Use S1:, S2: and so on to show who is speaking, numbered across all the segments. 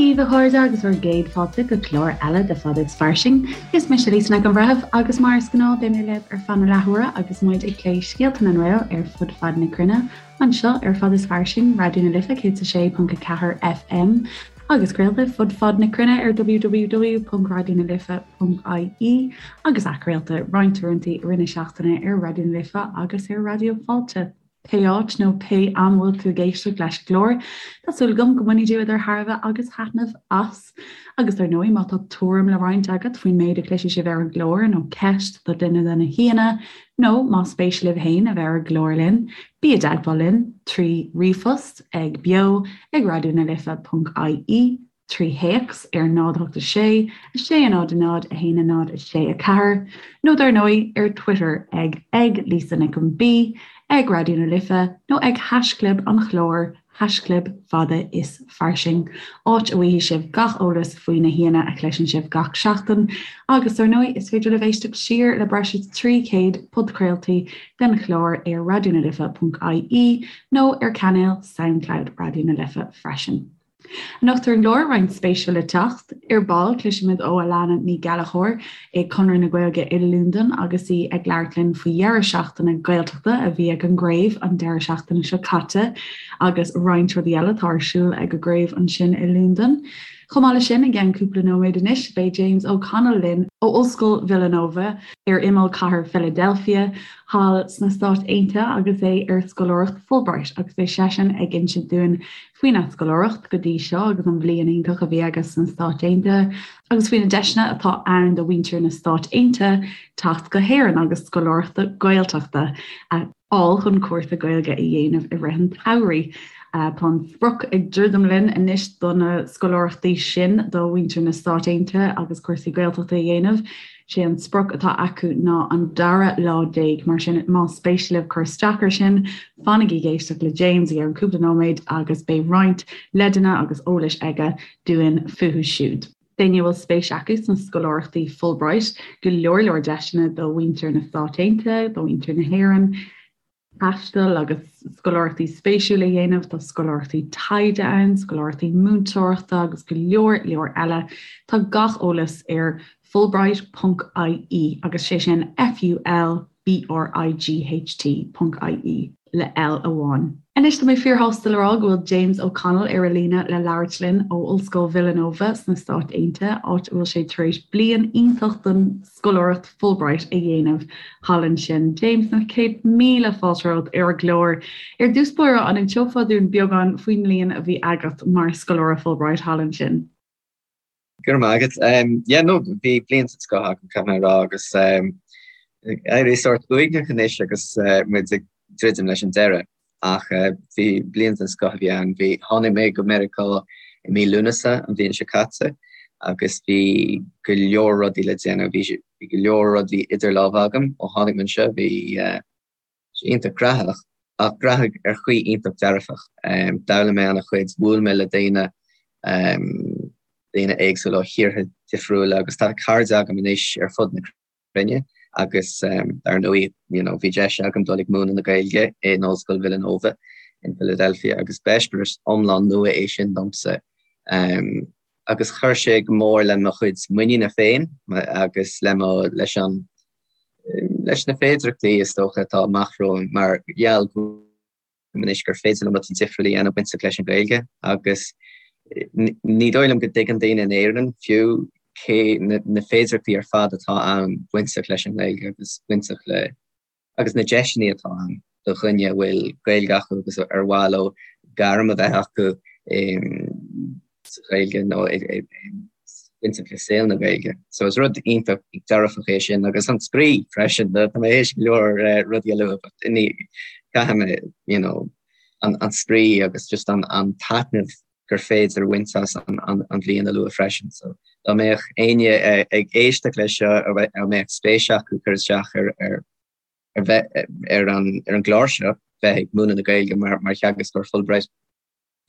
S1: daoibh a chairde agus bhur gcéad fáilte go clár eile de Fada is Fairsing. Is mise Lisa Nic an Bhreithimh agus mar is gnáth beidh mé libh ar feadh na leathuaire agus muid ag plé scéalta na nGael ar fud fad na cruinne anseo ar Fada is Fairsing, Raidió na Life 106.4 FM agus craolta fud fad na cruinne ar www.raidionalife.ie agus athchraolta roinnt uaireanta i rith na seachtaine ar Raidió na Life agus ar Raidió Fáilte. Pé áit nó pé am a bhfuil tú ag éisteacht leis an gclár, tá súil agam go mbainfidh tú idir thairbhe agus thaitneamh as. Agus dar ndóigh, má tá tuairim le roinnt agat faoin méid a chloisfidh sibh ar an gclár, nó ceist do dhuine de na haíonna, nó más spéis libh féin a bheith ar an gclár linn, bí i dteagmháil linn trí ríomhphost ag beo ag raidionalife.ie. 3 théacs ar 0 8 6 6 0 0 1 0 6 4 nó dar ndóigh ar Twitter ag ag Lisa Nic an B, ag Raidió na Life nó ag haischlib an chláir, haischlib fada is fairsing, áit a bhfaighidh sibh gach eolas faoi na haíonna a chloiseann sibh gach seachtain. Agus dar ndóigh is féidir libh éisteacht siar le breis is 300 podchraoltaí den chlár ar raidionalife.ie nó ar chainéal Soundcloud Raidió na Life freisin. Anocht ar an gclár, roinnt spéisiúil le teacht. Ar ball, cloisfimid ó Alana Ní Ghallchóir i Conradh na Gaeilge i Londain agus í ag labhairt linn faoi dheireadh seachtaine Gaeltachta a bhí ag an gcraobh an deireadh seachtaine seo caite agus roinnt rudaí eile atá ar siúl ag an gcraobh ansin i Londain. Chomh maith leis sin, i gceann cúpla nóiméad anois, beidh James O'Connell linn ó Ollscoil Villanova ar imeall cathair Philadelphia thall sna Stáit Aontaithe agus é ar scoláireacht Fulbright agus beidh seisean ag insint dúinn faoina scoláireacht go dtí seo agus an bhliain iontach a bhí aige sna Stáit Aontaithe agus faoi na deiseanna atá ann do mhuintir na Stáit Aontaithe teacht go hÉirinn agus scoláireachta Gaeltachta a fháil chun cúrsa Gaeilge a dhéanamh i rith an tsamhraidh. Tá an sprioc ag druidim linn anois do na scoláireachtaí sin do mhuintir na Stáit Aontaithe agus cúrsaí Gaeltachta a dhéanamh. Sé an sprioc atá acu ná an dara lá déag, mar sin más spéis libh cur isteach air sin, fanaigí ag éisteacht le James i gceann cúpla nóiméad agus beidh roinnt leideanna agus eolais aige dúinn fúthu siúd. D'éinne a bhfuil spéis acu sna scoláireachtaí Fulbright, go leor leor deiseanna do mhuintir na Stát Aontaithe, do mhuintir na hÉireann, taisteal agus scoláireachtaí spéisiúla a dhéanamh, tá scoláireachtaí taighde ann, scoláireachtaí múinteoireachta agus go leor leor eile. Tá gach eolas ar fulbright ponc ie agus sé sin F-U-L B-R-I-G-H-T ponc ie le L amháin. Anois tá mé fíorshásta le rá go bhfuil James O'Connell ar an líne le labhairt linn ó Ollscoil Villanova sna Stáit Aontaithe, áit a bhfuil sé tar éis bliain iontach den scoláireacht Fulbright a dhéanamh thall ansin. James, na 100,000 fáilte romhat ar an gclár. Ar dtús báire, an inseofá dúinn beagán faoin mbliain a bhí agat mar scoláire Fulbright thall ansin?
S2: Go raibh maith agat. Yeah, no, bhí bliain den scoth agam, caithfidh mé a rá, agus ag éirí sórt uaigneach anois agus muid ag druidim leis an deireadh. Ach bhí bliain den scoth a bhí ann. Bhí, tháinig mé go Meiriceá i mí Lúnasa an bhliain seo caite agus bhí go leor rudaí le déanamh. Bhí, bhí go leor rudaí idir lámha agam ó tháinig mé anseo. Bhí sé iontach graitheach ach graitheach ar chaoi iontach dearfach. D'fhoghlaim mé an-chuid, bhuail mé le daoine, daoine éagsúla ó thíortha difriúla agus tá cairde agam anois ar fud na cruinne agus dar ndóigh you know bhí deis agam dul ag múineadh na Gaeilge in Ollscoil Villanova in Philadelphia agus b'eispéireas iomlán nua é sin domsa agus chuir sé go mór le mo chuid muiníne féin agus le mo leis an leis na féidearthachtaí is dócha atá amach romham mar gheall go anois gur féidir liom rudaí difriúla a dhéanamh bainteach leis an Ghaeilge agus ní dóigh liom go dtuigeann daoine in Éirinn fiú cé na féidearthachtaí ar fad atá ann bainteach leis an nGaeilge agus bainteach le agus na deiseanna atá ann do dhuine a bhfuil Gaeilge acu agus ar mhaith leo gairm a bheith acu sa Ghaeilge nó bainteach le saol na Gaeilge. So is rud iontach dearfach é sin agus an spraoi freisin. Tá mé théis go leor rudaí a lua but ní caithfidh mé you know an an spraoi agus just an an taitneamh gur féidir a bhaint as an an an bhliain a lua freisin. So dá mbeadh éinne ag éisteacht leis seo a mbeadh spéis acu cur isteach ar ar ar bheith ar an ar an gclár seo bheith ag múineadh na Gaeilge mar mar theagascóir Fulbright,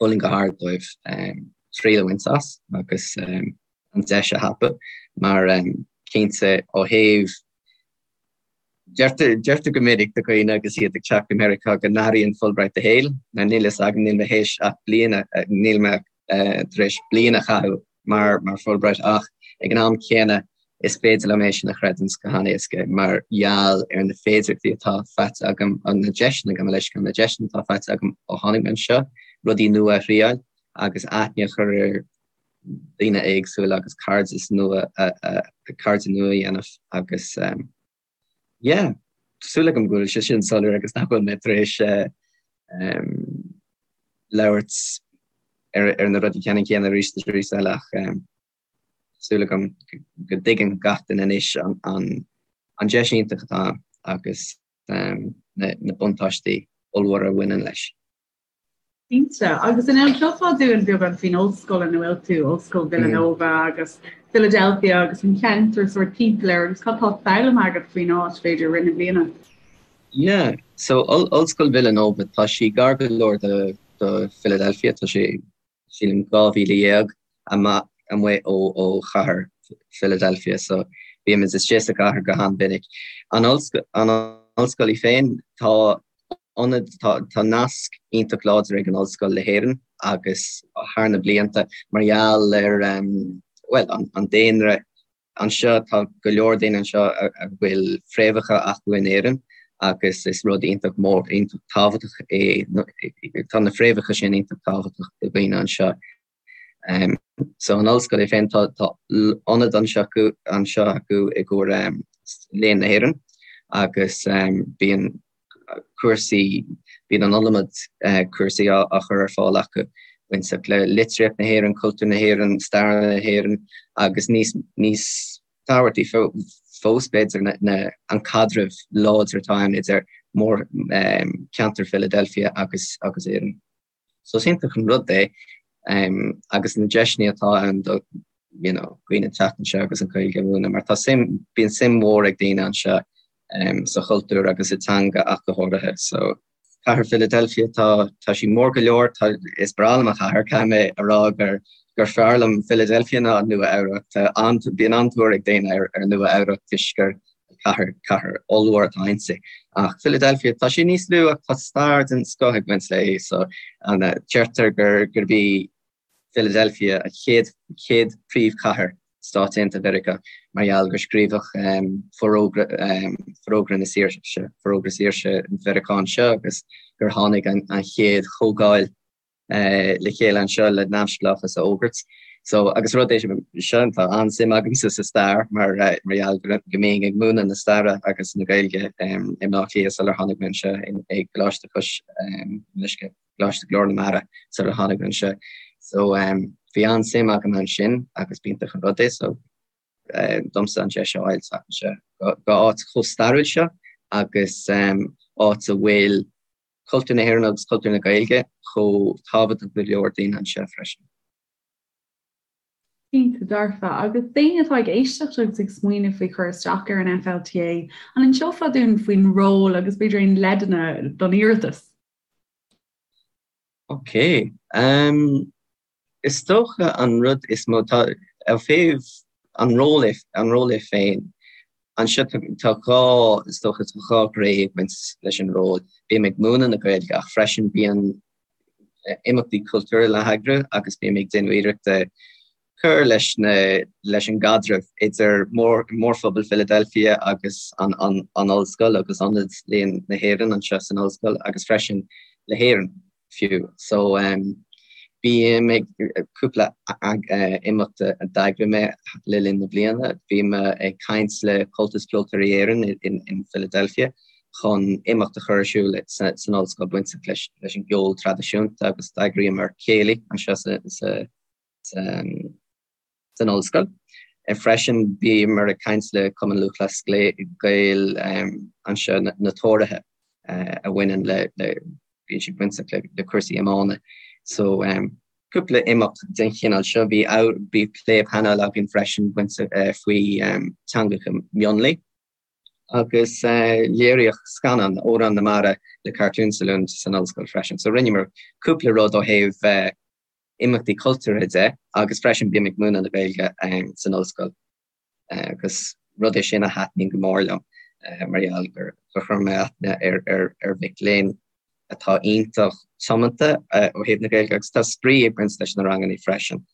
S2: Mholfainn go hard dóibh triail a bhaint as agus an deis a thapú mar cinnte ó thaobh deirtear go minic do dhaoine agus iad ag teacht go Meiriceá go n-athraíonn Fulbright do shaol. Níl fhios agam, níl mé théis ach bliain, níl mé. tar éis bliain a chaitheamh mar mar Fulbright ach ag an am céanna is féidir liom é sin a chreidiúint go han-éasca mar gheall ar na féidearthachtaí atá faighte agam, na deiseanna, gabh mo leithscéal, na deiseanna atá faighte agam ó tháinig mé anseo, rudaí nua a thriáil agus aithne a chur ar daoine éagsúla agus cairdeas nua cairde nua a dhéanamh agus yeah, tá súil agam go bhfuil sé sin soiléir agus nach bhfuil mé tar éis labhairt ar na rudaí ceannann céanna arís is arís eile ach súil agam go dtuigeann gach duine anois an deis iontach atá ann agus na buntáistí ollmhóra a bhaineann leis.
S1: Cinnte. Agus an inseofá dúinn beagán faoin ollscoil ina bhfuil tú, Ollscoil Villanova agus Philadelphia agus an ceantar sórt timpeall air agus cad tá foghlamtha agat faoin áit, b'fhéidir, i rith na bliana?
S2: Yeah, so Ollscoil Villanova, tá sí gar go leor do do Philadelphia, tá sé sílim 12,000 amach amuigh ó ó chathair Philadelphia, so bímid istigh sa chathair go han-mhinic. An an ollscoil í féin, tá ionad, tá tá nasc iontach láidir ag an ollscoil le hÉirinn agus thar na blianta mar gheall ar bhuel an an daonra anseo, tá go leor daoine anseo a bhfuil fréamhacha acu in Éirinn agus is rud iontach mór, iontach tábhachtach é, tá na fréamhacha sin iontach tábhachtach do dhaoine anseo. So an ollscoil é féin, tá ionad anseo acu, anseo acu i gcomhair Léann na hÉireann agus bíonn cúrsaí, bíonn an iliomad cúrsaí á chur ar fáil acu bainteach le litríocht na hÉireann, cultúr na hÉireann, stair na hÉireann agus níos, níos tábhachtaí fós b'fhéidir na, an caidreamh láidir atá ann idir mór, ceantar Philadelphia agus, agus Éirinn. So is iontach an rud é agus na deiseanna atá ann do you know, dhaoine teacht anseo agus an Ghaeilge a mhúineadh mar tá suim, bíonn suim mhór ag daoine anseo sa chultúr agus sa teanga ach go háirithe. So cathair Philadelphia tá tá sí mór go leor, tá is breá liom an chathair, caithfidh mé a rá gur gur fearr liom Philadelphia ná Nua Eabhrac. Tá an bíonn an-tóir ag daoine ar ar Nua Eabhrac toisc gur cathair, cathair ollmhór atá inti. Ach Philadelphia, tá sí níos lú ach tá stair den scoth ag baint léi so an deirtear gur gurb í Philadelphia an chéad chéad príomhchathair Stáit Aontaithe Mheiriceá mar gheall gur scríobhadh forógra forógra na saoirse, forógra saoirse Mheiriceá anseo agus gur tháinig an an chéad chomhdháil le chéile anseo le neamhspleáchas a fhógairt. So, agus rud é seo, tá an-suim agamsa sa stair mar mar gheall go mbínn ag múineadh na staire agus na Gaeilge i mBleá Cliath sular tháinig mé anseo i gColáiste Chois Uisce, Coláiste Ghlór na Mara sular tháinig mé anseo. So, bhí an-suim agam ansin agus b'iontach an rud é so domsa an deis a fháil teacht anseo go áit chomh stairiúil seo agus áit a bhfuil cultúr na hÉireann agus cultúr na Gaeilge chomh tábhachtach do go leor daoine anseo freisin.
S1: Cinnte dearfa. Agus daoine atá ag éisteacht agus ag smaoineamh faoi chur isteach ar an FLTA, an inseofá dúinn faoin ról agus b'fhéidir aon leideanna don iarratas?
S2: Ok. Um, Is dócha an rud is mó, tá, ó thaobh an ról é, an ról é féin, anseo tá, tá dhá, is dócha tá dhá ghné ag baint leis an ról. Bím ag múineadh na Gaeilge ach freisin bíonn imeachtaí cultúrtha le heagrú agus bím ag déanamh iarrachta cur leis na, leis an gcaidreamh idir mór, mórphobal Philadelphia agus an, an, an ollscoil agus Ionad Léann na hÉireann anseo san ollscoil agus freisin le hÉirinn. fiú. So bím ag cúpla imeacht a d'eagraigh mé le linn na bliana. Bhí mé ag caint le Comhaltas Ceoltóirí Éireann in Philadelphia chun imeacht a chur ar siúl san ollscoil bainteach leis leis an gceol traidisiúnta agus d'eagraíomar céilí anseo sa sa san ollscoil. Freisin bhíomar ag caint le Cumann Lúthchleas Gael anseo, na Tóraithe a bhaineann le, bíonn siad bainteach le cúrsaí iomána. So cúpla imeacht den chineál seo. Bhí bhí plé painéil againn freisin bainteach faoi teangacha mionlaigh agus léiríodh scannán Amhrán na Mara le Cartoon Saloon san ollscoil freisin. So rinneamar cúpla rud ó thaobh imeachtaí cultúrtha de agus freisin bím ag múineadh na Gaeilge san ollscoil agus rud é sin a thaitníonn go mór liom mar gheall gur chuir mé aithne ar ar ar mhic léinn. atá iontach tiomanta ó thaobh na Gaeilge agus tá spraoi ag baint leis na ranganna freisin,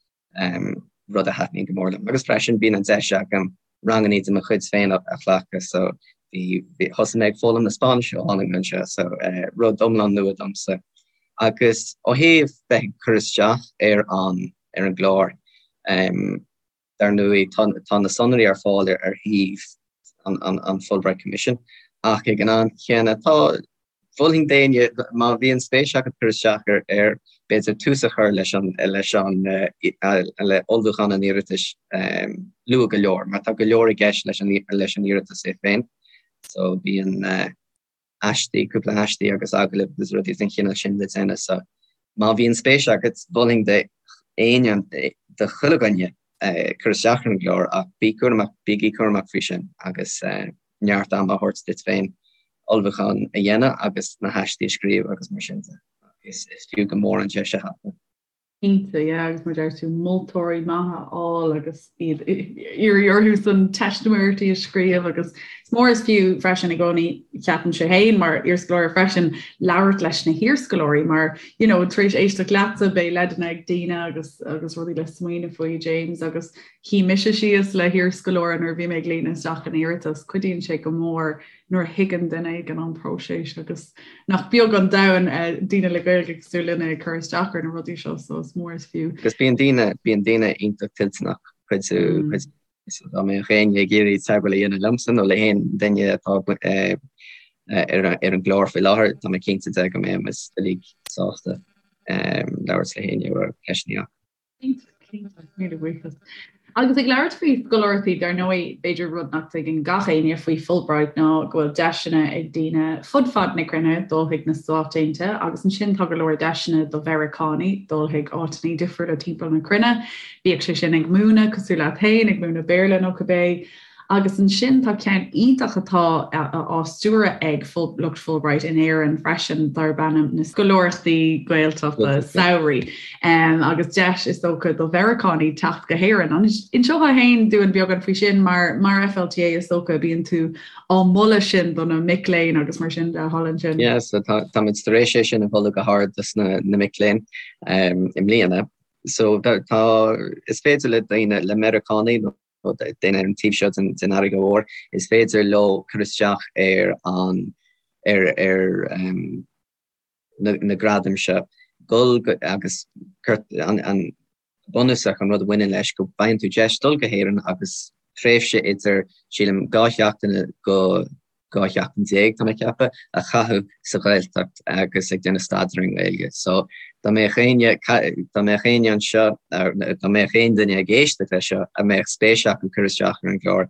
S2: rud a thaitníonn go mór liom. Agus freisin bíonn an deis agam ranganna de mo chuid féin a ghlacadh so bhí thosaigh mé ag foghlaim na Spáinnise ó tháinig mé anseo so rud iomlán nua domsa. Agus ó thaobh bheith ag cur isteach ar an ar an gclár, Dar ndóigh, tá na sonraí ar fáil ar shuíomh an Fulbright Commission, ach ag an am chéanna, tá, mholfainn d'éinne, má bhíonn spéis agat cur isteach air, b'fhéidir tús a chur leis an, leis an, le ullmhúchán an iarratais luath go leor, mar tá go leor i gceist leis an, leis an iarratas é féin. So bíonn. aistí, cúpla aistí agus agallaimh agus rudaí den chineál sin le déanamh so má bhíonn spéis agat, mholfainn d'éinne, do chuile dhuine cur isteach ar an gclár ach bí cúramach, bígí cúramach faoi sin agus neart ama a thabhairt duit féin ullmhúchán a dhéanamh agus na haistí a scríobh agus mar sin de. Is fiú go mór an deis a thapú.
S1: Cinnte, yeah, agus mar a deir tú, moltóirí maithe a fháil agus iad iarraidh orthu san teistiméireachtaí a scríobh agus is mór is fiú freisin i gcónaí, ceapaimse féin mar iarscoláire freisin, labhairt leis na hiarscoláirí mar, you know, tar éis éisteacht leatsa beidh leideanna ag daoine agus agus rudaí le smaoineamh faoi, James, agus shuigh mise síos le hiarscoláire nuair a bhí mé ag líonadh isteach an iarratas, cuidíonn sé go mór nuair a thuigeann duine éigin an próiseas agus nach beag an domhan daoine le Gaeilge cosúil linne ag cur isteach ar na rudaí seo so is mór is fiú.
S2: Agus bíonn daoine, bíonn daoine iontach toilteanach cuidiú, cuidiú so dá mbeadh éinne ag iarraidh teagmháil a dhéanamh liomsa nó le haon duine atá ar ar an gclár faoi láthair, tá mé cinnte de go mbeidh muid uilig sásta labhairt le héinne a bhfuil ceisteanna acu.
S1: Cinnte, míle buíochas. Agus ag labhairt faoi scoláireachtaí, dar ndóigh, b'fhéidir rud nach dtuigeann gach éinne faoi Fulbright ná go bhfuil deiseanna ag daoine fud fad na cruinne dul chuig na Stáit Aontaithe agus ansin tá go leor deiseanna do Mheiriceánaigh dul chuig áiteanna difriúla timpeall na cruinne, bíodh sé sin ag múineadh, cosúil leat féin, ag múineadh Béarla nó cibé. Agus ansin tá ceann iontach atá á stiúradh ag lucht Fulbright in Éirinn freisin darb ainm na Scoláireachtaí Gaeltachta Samhraidh agus deis is dócha do Mheiriceánaigh teacht go hÉirinn. An inseofá féin dúinn beagán faoi sin mar mar FLTA is dócha bíonn tú á moladh sin do na mic léinn agus mar sin de thall ansin.
S2: Yeah, so tá táimid tar éis é sin a mholadh go hard dos na na mic léinn i mbliana. So tá is féidir le daoine le Meiriceánaigh nó daoine ar an taobh seo den fharraige mhór, is féidir leo cur isteach ar an ar ar na gradaim seo, dul go agus an an bunúsach an rud a bhaineann leis go bhfaigheann tú deis dul go hÉirinn agus tréimhse idir sílim 2 sheachtaine go 12 sheachtain, tá mé ag ceapadh, a chaitheamh sa Ghaeltacht agus ag déanamh staidéir ar an nGaeilge. So, dá mbeadh éinne, dá mbeadh éinne anseo, dá mbeadh aon duine ag éisteacht leis seo a mbeadh spéis acu cur isteach ar an gclár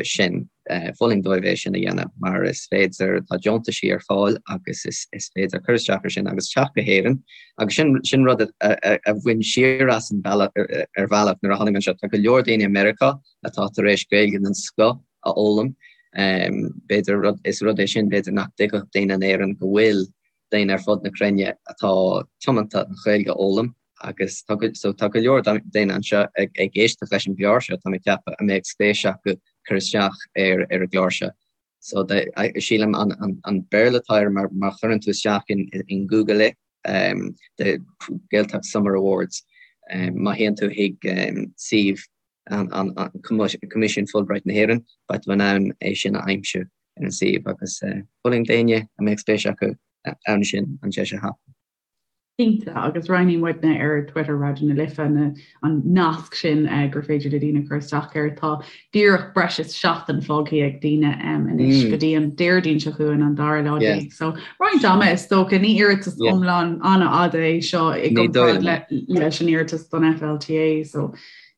S2: sin, mholfainn dóibh é sin a dhéanamh mar is féidir, tá deontaisí ar fáil agus is is féidir cur isteach ar sin agus teacht go hÉirinn agus sin sin rud a a bhain siar asam bealach ar bhealach nuair a tháinig mé anseo. Tá go leor daoine i Meiriceá atá tar éis Gaeilge den scoth a fhoghlaim. B'fhéidir rud, is rud é sin b'fhéidir nach dtuigfeadh daoine in Éirinn go bhfuil daoine ar fud na cruinne atá tiomanta an Ghaeilge a fhoghlaim agus tá go, so tá go leor daoine anseo ag, ag éisteacht leis an gclár seo, tá mé ag ceapadh, a mbeadh spéis acu cur isteach ar, ar an gclár seo. So de, sílim an, an, an Béarla atá air mar, má chuireann tú isteach in, in Google é, um, the Gaeltacht Summer Awards, um, má théann tú chuig um, suíomh an Coimisiún Fulbright na hÉireann, beidh tú in ann é sin a aimsiú ar an suíomh agus mholfainn d'éinne a mbeadh spéis acu ann sin an deis a thapú.
S1: Cinnte, agus roinnfidh muidne ar Twitter Raidió na Life an nasc sin gur féidir le daoine cur isteach air. Tá díreach breis is seachtain fágtha ag daoine anois go dtí an Déardaoin seo chugainn an dara lá déag. So roinnt ama is dócha, ní iarratas iomlán an-fhada é seo i gcomparáid leis an iarratas don FLTA. So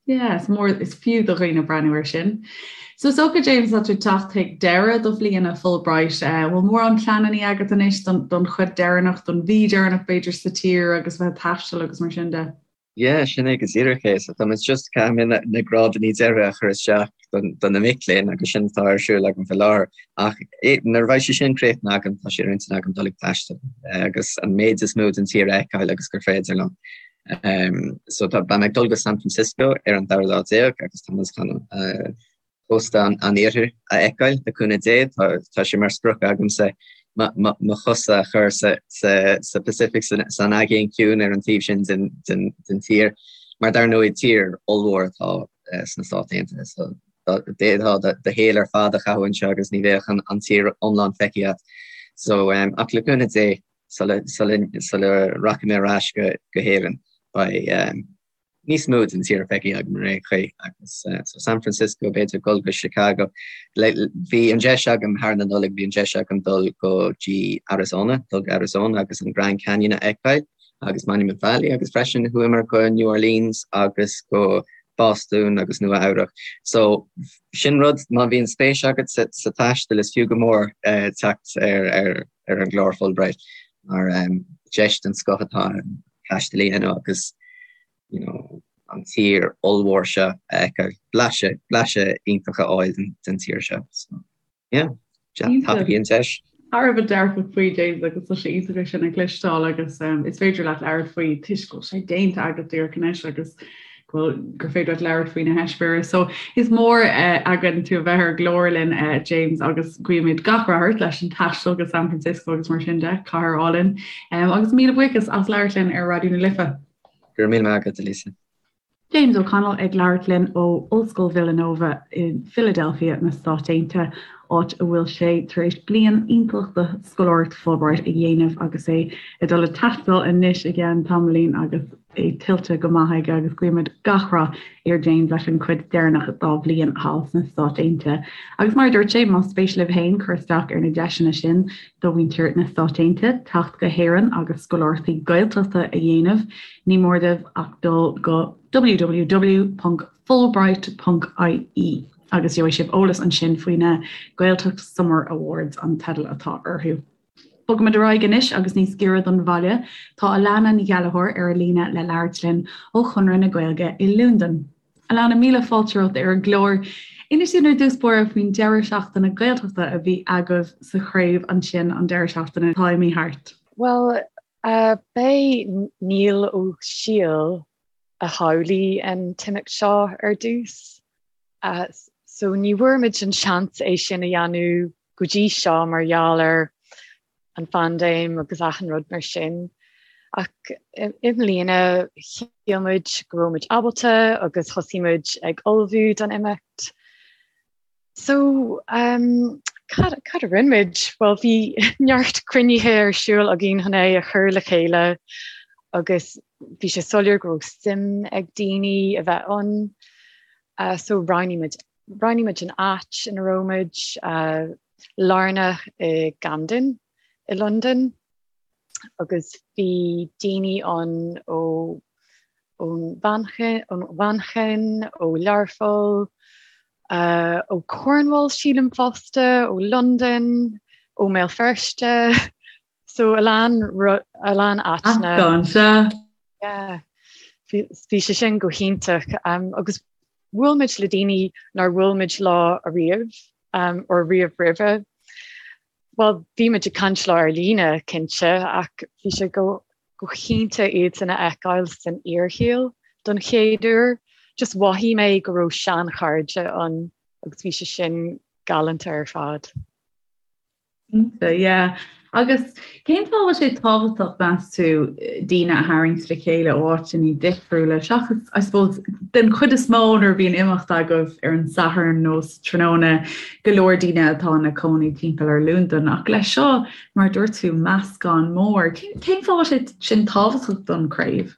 S1: Yeah, is mór is fiú do dhaoine breathnú air sin. So is dócha, James, tá tú ag teacht chuig deireadh do bhliana Fulbright. Eh, bhfuil mórán pleananna agat anois don, don chuid deireanach, don mhí deireanach b'fhéidir sa tír agus bheith ag taisteal agus mar sin de?
S2: Yeah, sin é go díreach é. So tá muid just caithfidh mé na, na grádanna deiridh a chur isteach don, do na mic léinn agus sin atá ar siúl agam faoi láthair. Ach eh, nuair a bheidh sé sin críochnaithe agam, tá sé ar intinn agam dul ag taisteal eh, agus an méid is mó den tír a fheiceáil agus gur féidir liom. So tá, beidh mé ag dul go San Francisco ar an dara lá déag agus tá muid chun cósta an, an iarthair a fheiceáil le cúnamh Dé. Tá, tá sé mar sprioc agamsa. mo chosa a chur sa Pacific, san Aigéan Ciúin ar an taobh sin den tír, mar dar ndóigh tír ollmhór atá sna Stáit Aontaithe so d'fhéadfá do shaol ar fad a chaitheamh anseo agus ní bheadh an tír iomlán feicthe agat. So ach le cúnamh Dé sula rachaidh mé ar ais go hÉirinn beidh níos mó den tír feicthe agam ar aon chaoi agus so San Francisco, b'fhéidir dul go Chicago. Bhí an deis agam thar na Nollag, bhí an deis agam dul go dtí Arizona, dul go Arizona agus an Grand Canyon a fheiceáil agus Monument Valley agus freisin chuamar go New Orleans agus go Bostún agus Nua Eabhrac. So sin rud, má bhíonn spéis agat sa taisteal is fiú go mór teacht ar ar ar an gclár Fulbright mar deis den scoth atá ann taisteal a dhéanamh agus you know, an tír ollmhór seo a fheiceáil, blaiseadh, blaiseadh iontach a fháil den, den tír seo. So, yeah, tapaigí an deis.
S1: Thar a bheith dearfach faoi James agus tá sé iontach é sin a chloisteáil agus um, is féidir leat labhairt faoi toisc go bhfuil sé déanta agat díreach anois agus go gur féidir leat labhairt faoi na heispéiris. So is mór uh, againn tú a bheith ar an gclár linn uh, James agus guímid gach rath ort leis an taisteal go San Francisco agus mar sin de, cathair álainn. Um, agus míle buíochas as labhairt linn ar Raidió na Life.
S2: Go raibh míle maith agat, Lisa.
S1: James O'Connell ag labhairt linn ó Ollscoil Villanova i Philadelphia na Stáit Aontaithe, áit a bhfuil sé tar éis bliain iontach de scoláireacht Fulbright a dhéanamh agus é ag dul ag taisteal anois i gceann tamaillín agus é tuillte go maith aige agus guímid gach rath ar James leis an chuid deireanach dá bhliain thall sna Stáit Aontaithe. Agus mar a dúirt sé, más spéis libh féin cur isteach ar na deiseanna sin do mhuintir na Stáit Aontaithe teacht go hÉirinn agus scoláireachtaí Gaeltachta a dhéanamh, ní mór daoibh ach dul go www.fulbright.ie agus gheobhaidh sibh eolas ansin faoi na Gaeltacht Summer Awards an teideal atá orthu. Bogaimid ar aghaidh anois agus níos giorra don bhaile, tá Alana Ní Ghallchóir ar an líne le labhairt linn ó Chonradh na Gaeilge i Londain. Alana, míle fáilte romhat ar an gclár. Inis dúinn ar dtús báire faoin deireadh seachtaine Gaeltachta a bhí agaibh sa chraobh ansin an deireadh seachtaine atá imithe thart.
S3: Bhuel, b'é Niall Ó Siadhail a shamhlaigh an t-imeacht seo ar dtús. So ní bhfuair muid an seans é sin a dhéanamh go dtí seo mar gheall ar an phaindéim agus achan rud mar sin. Ach i mbliana shíl muid go raibh muid ábalta agus thosaigh muid ag ullmhú don imeacht. So um, cad, cad a rinne muid? Bhuel bhí neart cruinnithe ar siúl againn chun é a chur le chéile agus bhí sé soiléir go raibh suim ag daoine a bheith ann. Uh, so roghnaigh muid Roghnaigh muid an áit ina raibh muid, lárnach i gCamden i Londain, agus bhí daoine ann ó ón Mhanchain, ó Learpholl, ó Cornwall sílim fosta, ó Londain, ó mBéal Feirste. So a lán a lán áiteanna.
S1: Meascán, sea.
S3: Yeah. Bhí sé sin go hiontach agus bhuail muid le daoine nár bhuail muid leo ariamh or riamh roimhe. Bhuel, bhí muid ag caint leo ar líne, cinnte, ach bhí sé go go hiontach iadsan a fheiceáil san fhíorshaol don chéad uair. Just mhothaigh mé go raibh seanchairde ann agus bhí sé sin galánta ar fad.
S1: Cinnte, yeah. Agus cén fáth a bhfuil sé tábhachtach, meas tú, daoine a tharraingt le chéile ó áiteanna difriúla, seachas, I suppose, den chuid is mó nuair a bhíonn imeacht agaibh ar an Satharn nó sa tráthnóna, go leor daoine atá ina cónaí timpeall ar Londain. Ach leis seo, mar a dúirt tú, meascán mór. Cén fáth a bhfuil sé sin tábhachtach don chraobh?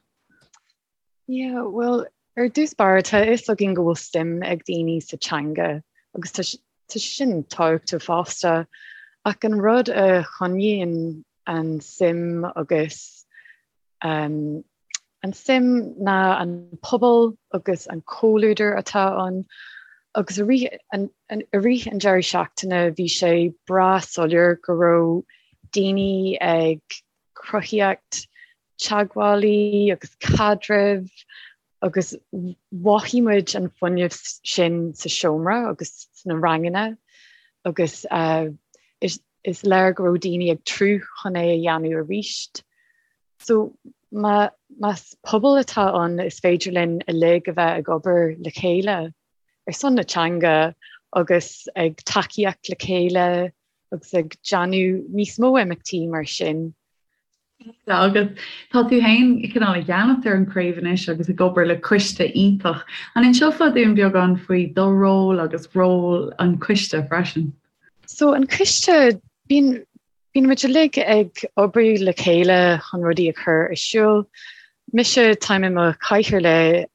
S3: Yeah, bhuel, ar dtús báire, tá a fhios againn go bhfuil suim ag daoine sa teanga agus tá sé sin tábhachtach fosta, ach an rud a choinníonn an suim agus um, an suim ná an pobal agus an comhluadar atá ann agus i rith an, an, i rith an deireadh seachtaine bhí sé breá soiléir go raibh daoine ag cruthaíocht teagmhálaí agus caidrimh agus mhothaigh muid an fuinneamh sin sa seomra agus sna ranganna agus is is léir go raibh daoine ag tnúth chun é a dhéanamh arís. So má más pobal atá ann is féidir linn uilig a bheith ag obair le chéile ar son na teanga agus ag tacaíocht le chéile. agus ag déanamh níos mó imeachtaí mar sin.
S1: Agus tá tú féin cineál i gceannas ar an chraobh anois agus ag obair le coiste iontach. An inseofá dúinn beagán faoi do ról agus ról an choiste freisin?
S3: So an coiste, bíonn bíonn muid uilig ag obair le chéile chun rudaí a chur ar siúl. Mise, táim i mo chathaoirleach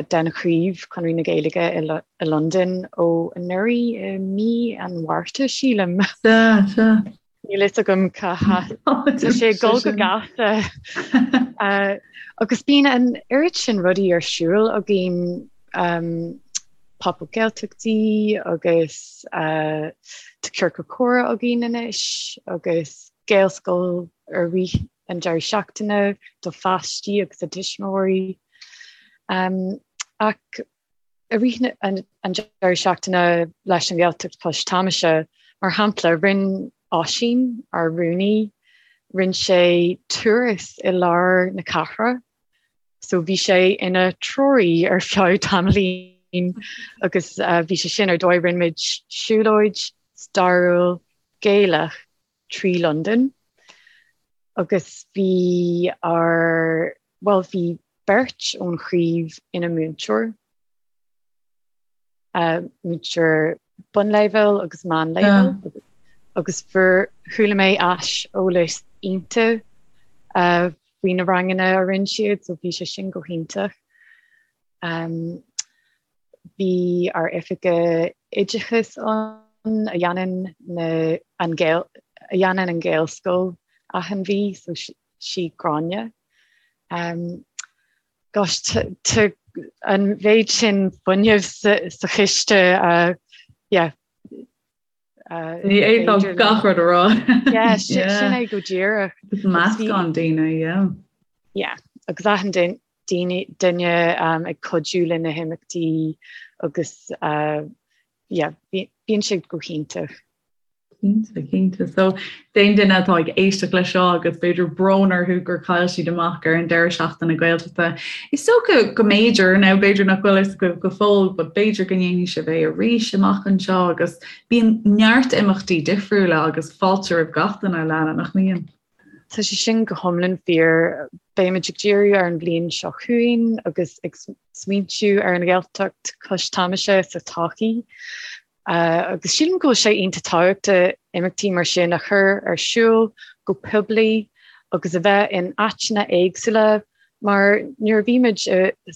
S3: den chraobh Conradh na Gaeilge i Londain ó anuraidh i mí an Mhárta, sílim.
S1: Sea, sea.
S3: Níl fhios agam cá Tá sé ag dul go gasta. Agus bíonn an oiread sin rudaí ar siúl againn, Pop-up Gaeltachtaí agus tá ciorcal comhrá againn anois agus Gaelscoil i rith an deireadh seachtaine do pháistí agus a dtuismitheoirí. Ach i rith an deireadh seachtaine leis an Ghaeltacht Cois Tamaise, mar shampla, rinne Oisín, ár rúnaí, rinne sé turas i lár na cathrach. So bhí sé ina threoraí ar feadh tamaillín agus bhí sé sin ar dóigh, rinne muid siúlóid stairiúil Gaelach trí Londain agus bhí ár, bhuel bhí beirt ón chraobh ina múinteoir, múinteoir bunleibhéil agus meánleibhéil agus fuair, chuala mé aiseolas iontach faoi na ranganna a rinne siad so bhí sé sin go hiontach. Bhí ár oifigeach oideachais ann a dhéanann na an Gael a dhéanann an Ghaelscoil achan mhí, so sí Gráinne. Um, gosh, tá an mhéid sin fuinnimh sa, sa chiste, uh, yeah,
S1: Ní fhéadfá gach rud a rá.
S3: Yeah, sin é go díreach.
S1: Is meascán daoine,
S3: yeah. Yeah, agus achan duine ag cuidiú le na himeachtaí agus yeah, bíonn sé go hiontach.
S1: Cinnte, cinnte. So, d'aon duine atá ag éisteacht leis seo agus b'fhéidir brón orthu gur chaill siad amach ar an deireadh seachtaine Gaeltachta, is dócha go mb'fhéidir, now b'fhéidir nach bhfuil fhios agaibh go fóill, but b'fhéidir go ndéanfaidh sibh é arís amach anseo agus bíonn neart imeachtaí difriúla agus fáilte roimh gach duine, Alana, nach mbíonn?
S3: Tá sé sin go hiomlán fíor. Beimid ag díriú ar an bhliain seo chugainn agus ag smaointiú ar an Ghaeltacht cois Tamaise sa todhchaí. Agus sílim go bhfuil sé iontach tábhachtach imeachtaí mar sin a chur ar siúl go poiblí agus a bheith in áiteanna éagsúla mar nuair a bhí muid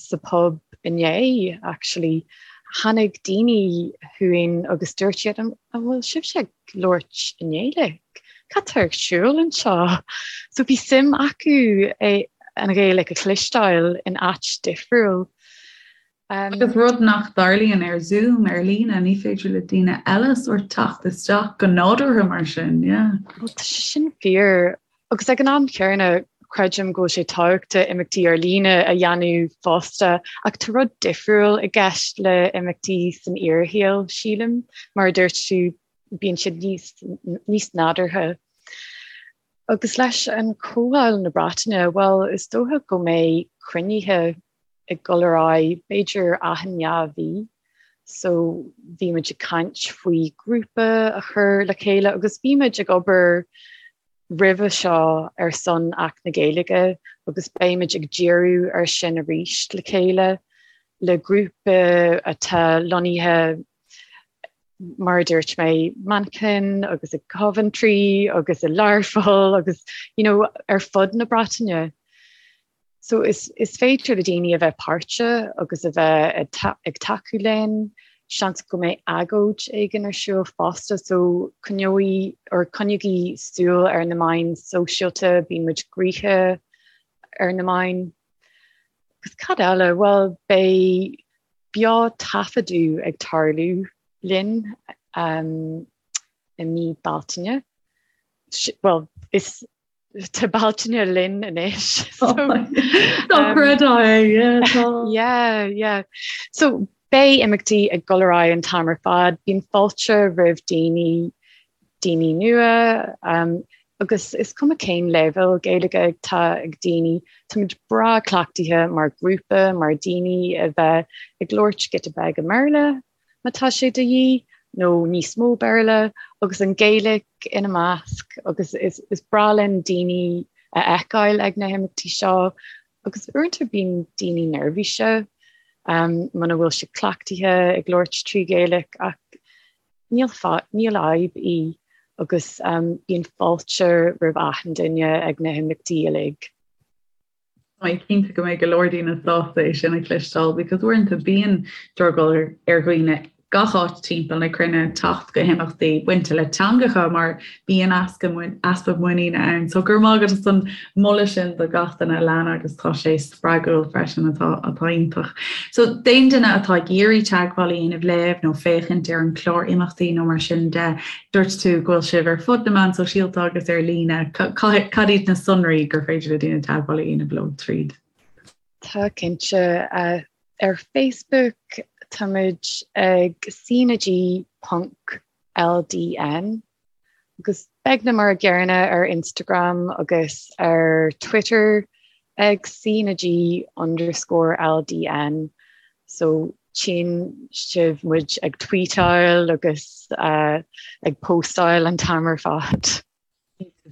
S3: sa pub inné actually tháinig daoine chugainn agus dúirt siad an bhfuil sibhse ag labhairt i nGaeilge? Cad tá ar siúl anseo? So bhí suim acu an Ghaeilge a chloisteáil in áit difriúil.
S1: Agus rud nach dtarlaíonn ar Zoom, ar líne, ní féidir le daoine eile sórt teacht isteach go nádúrtha mar sin, yeah.
S3: Bhuel, tá sé sin fíor. Agus ag an am chéanna, creidim go bhfuil sé tábhachtach imeachtaí ar líne a dhéanamh fosta, ach tá rud difriúil i gceist le imeachtaí san fhíorshaol, sílim. Mar a dúirt tú, bíonn siad níos, níos nádúrtha. Agus leis an Chomhdháil na Breataine, bhuel, is dócha go mbeidh cruinnithe ag dul ar aghaidh b'fhéidir achan dhá mhí so bhí muid ag caint faoi grúpa a chur le chéile agus bhí muid ag obair roimhe seo ar son Acht na Gaeilge agus beidh muid ag díriú ar sin arís le chéile le grúpa atá lonnaithe mar a dúirt mé, Manchain agus i Coventry agus i Learpholl agus you know, ar fud na Breataine. So is is féidir le daoine a bheith páirteach agus a bheith ag tacú linn, seans go mbeidh agóid éigin ar siúl fosta so coinneoidh or coinnígí súil ar na meáin sóisialta, bíonn muid gnoitheach ar na meáin. Agus cad eile? Bhuel beidh beo taifeadadh ag tarlú linn um, i mí Bealtaine. Bhuel is Tá Bealtaine linn anois.
S1: Dochreidte é, yeah,
S3: tá. Yeah, yeah. So beidh imeachtaí ag dul ar aghaidh an t-am ar fad, bíonn fáilte roimh daoine, daoine nua, um, agus is cuma cén leibhéal Gaeilge atá ag daoine, táimid breá cleachtaithe mar ghrúpa, mar daoine a bheith ag labhairt giota beag i mBéarla má tá sé de dhíth. nó níos mó Béarla agus an Ghaeilge ina measc agus is is breá linn daoine a fheiceáil ag na himeachtaí seo agus uaireanta bíonn daoine neirbhíseach um, muna bhfuil siad cleachtaithe ag labhairt trí Ghaeilge ach níl níl fadhb í agus um, bíonn fáilte roimh achan duine ag na himeachtaí uilig.
S1: Tá mé cinnte go mbeidh go leor daoine sásta é sin a chloisteáil because uaireanta bíonn drogall ar dhaoine gach áit timpeall na cruinne teacht go himeachtaí bainte le teangacha mar bíonn easpa muiníne ann. So go raibh maith agat as an moladh sin do gach duine Alana agus tá sé spreagúil freisin atá atá iontach. So d'aon duine atá ag iarraidh teagmháil a dhéanamh libh nó féachaint ar an chlár imeachtaí nó mar sin de, Dúirt tú go bhfuil sibh ar fud na meán sóisialta agus ar líne. Cad iad na sonraí gur féidir le daoine teagmháil a dhéanamh leo tríd?
S3: Tá cinnte. Ar Facebook táimid ag CnaG ponc LDN agus beagnach mar a gcéanna ar Instagram agus ar Twitter ag CnaG underscore LDN. So tchíonn sibh muid ag tweetáil agus ag postáil an t-am ar fad.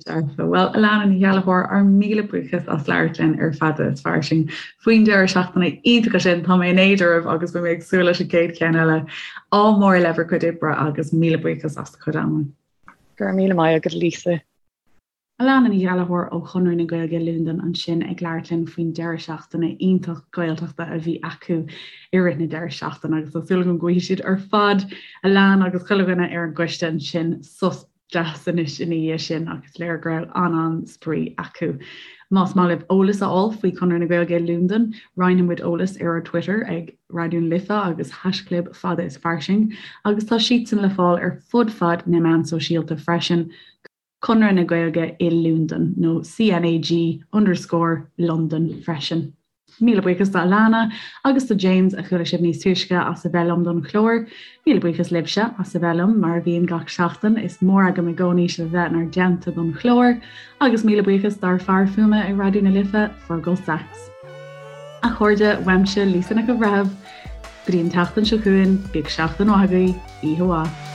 S1: Dearfa. Bhuel, Alana Ní Ghallchóir, ár míle buíochas as labhairt linn ar Fada is Fairsing faoin deireadh seachtaine iontach sin. Tá mé in éad oraibh agus beidh mé ag súil leis an gcéad cheann eile. Ádh mór le bhur gcuid oibre agus míle buíochas as do chuid ama.
S3: Go raibh míle maith agat, Lisa.
S1: Alana Ní Ghallchóir ó Chonradh na Gaeilge Londain ansin ag labhairt linn faoin deireadh seachtaine iontach Gaeltachta a bhí acu i rith na deireadh seachtaine agus tá súil agam go bhfaighidh siad ar fad, Alana agus chuile dhuine ar an gcoiste ansin, sos deas anois ina dhiaidh sin ach is léir go raibh an-an-spraoi acu. Más maith libh eolas a fháil faoi Chonradh na Gaeilge i Londain, roinnfidh muid eolas ar ár Twitter ag Raidió na Life agus haischlib Fada is Fairsing agus tá siadsan le fáil ar fud fad na meán sóisialta freisin. Conradh na Gaeilge i Londain, nó CNAG underscore London freisin. Míle buíochas do Alana agus do James a chuala sibh níos túisce as a bheith liom don chlár. Míle buíochas libhse as a bheith liom, mar a bhíonn gach seachtain. Is mór agam i gcónaí sibh a bheith inár dteannta don chlár. Agus míle buíochas dár fear fuaime i Raidió na Life, Fergal Sachs. A chairde, uaimse Lisa Nic an Bhreithimh, go dtí an tseachtain seo chugainn, bíodh seachtain mhaith agaibh, oíche mhaith.